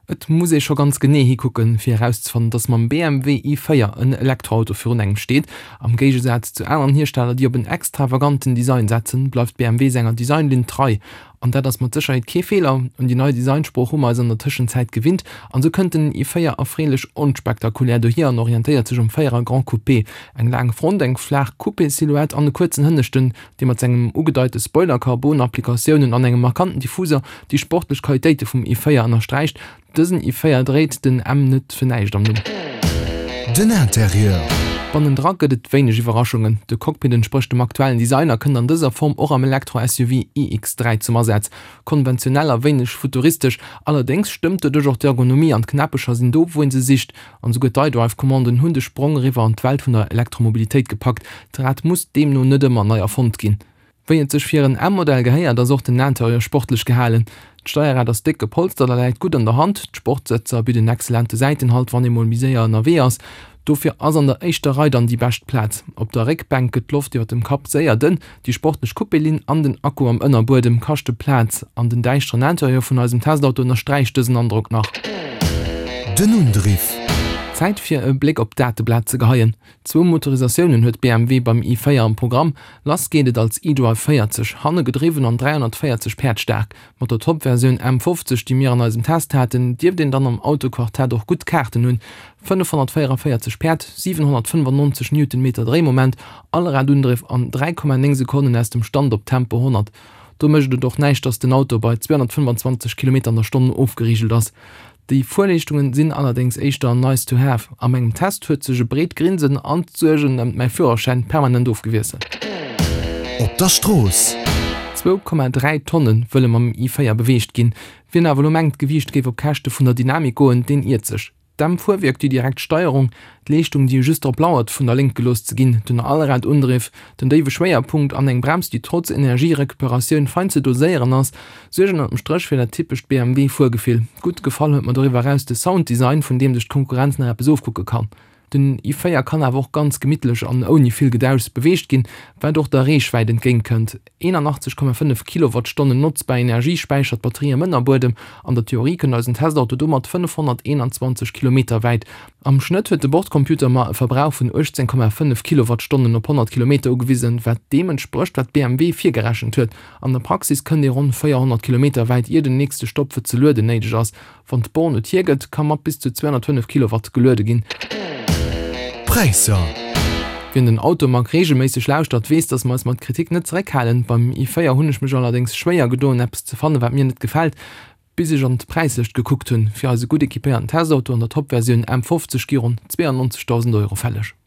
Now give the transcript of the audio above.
Et muss ee scho ganz genee hikucken, fir erauszefannen, dass mam BMW i4 en Elektroauto virun engem steet. Am Géigesaz zu aneren Hiersteller, déi op en extravaganten Design setzen, bleift BMW senger Designlinn trei. An dat ass mat Sécherheet kee Feeler. Un déi nei Designsprooch hu mer eis an der Tëschenzäit gewinnt an esou kënnt den i4 erfreelech onspektakulär dohier an orientéiert sech um Véierer Grand Coupé. Eng laang Front, eng flaach Coupé-Silhouette an e kuerzen Hënneschten, dee mat sengem ugedeite Spoiler, Carbon-Applikatiounen an engem markanten Diffuser déi sportlech Qualitéite vum i4 ënnersträicht. Dësen i4 dréit den M net fir näischt am Numm. Den Interieur. Bannendra gëtt et wéineg Iwwerraschungen. De Cockpit entsprécht dem aktuellen Design a kënnt an dëser Form och am Elektro-SUV iX3 zum Asaz. Konventionell a wéineg futuristesch, allerdéngs stëmmt doduerch och d'Ergonomie an d'Knäppecher sinn do wou een se sicht. An esouguer d'iDrive-Commanden hunn de Sprong eriwwer an d'Welt vun der Elektromobilitéit gepackt. D'Rad muss deemno net ëmmer nei erfonnt ginn. Wéi et sech fir en M-Modell gehéiert, ass och den Interieur sportlech gehalen. D'Steierrad ass déck gepolstert a läit gutt an der Hand. D'Sportsëtzer bidden exzellente Säitenhalt, wann ee mol méi séier ënnerwee ass. Dofir ass an der éischter Rei dann déi bescht Plaz. Op der Réckbänk gëtt d'Loft iwwer dem Kapp séier dënn. Déi sportlech Coupé-Linn an den Akku am Ënnerbuedem kaschte Plaz an den däischteren Interieur vun eisem Testauto ënnersträicht dësen Androck nach. Den Undriff. Zäit fir e Bléck op d'Dateblat ze geheien. Zwou Motorisatiounen huet BMW beim i4 am Programm. Lass geet et als iDrive 40, hanne gedriwwen an 340 Päerd staark. Mat der Top-Versioun M50, déi mir an eisem Test haten, dierft een dann am Autoquartett och gutt Kaarten hunn, 544 Päerd, 795 Newtonmeter Dréimoment, Allradundriff an 3,9 Sekonnen aus dem Stand op Tempo 100. Do mécht et och näischt, dass den Auto bei 225 Kilometer an der Stonn ofgerigelt ass. Déi Fuerleeschtungen sinn allerdéngs éischter nice to have. A mengem Test huet sech e breet Grinsen an d'Suergen ëmt mäi Führerschäin permanent ofgewiesselt. Op der Strooss. 2,3 Tonne wëlle mam i4 beweegt ginn. Wien awer elo mengt, d'Gewiicht géif op Käschte vun der Dynamik goen, deen iert sech. D'M-Fuerwierk, déi direkt Steierung, d'Leeschtung, déi just drop lauert, vun der Lénkt gelooss ze ginn, den Allradundriff, den déiwe Schwéierpunkt an eng Brems, déi trotz Energierecuperatioun fein ze doséieren ass, suergen ënnert dem Stréch fir dat typescht BMW-Fuergefill. Gutt gefall huet mer doriwwer eraus de Sounddesign, vun deem sech d'Konkurrenz nach eppes ofkucke kann. Den i4 kann awer och ganz gemittlech an ouni vill Gedauschs beweegt ginn, wat och der Reechwäit entgéint kënnt. 81,5 Kilowattstonnen notzbar Energie späichert d'Batterie am Ënnerbuedem. An der Theorie kënnt eisen Testauto domat 521 Kilometer wäit. Am Schnëtt huet de Bordcomputer mer e Verbrauch vun 18,5 Kilowattstonnen op 100 Kilometer ugewisen, wat deem entsprécht, wat BMW virgerechent huet. An der Praxis kënnt ee ronn 400 Kilometer wäit, ier den nächste Stopp fir ze lueden néideg ass. Wann d'Born et hiergëtt, ka mat bis zu 205 Kilowatt geluede ginn. Präisser. Wien den Automag reegelméisseg lauschtert, weess, dass mer eis mat Kritik net zeréckhalen. Beim i4 hunn ech mech allerdéngs schwéier gedoen, eppes ze fannen, wat mir net gefält, bis ech an d'Präislëscht gekuckt hunn. Fir eise gutt equipéierten Testauto an der Top-Versioun M50 gi ronn 92.000 Euro fälleg.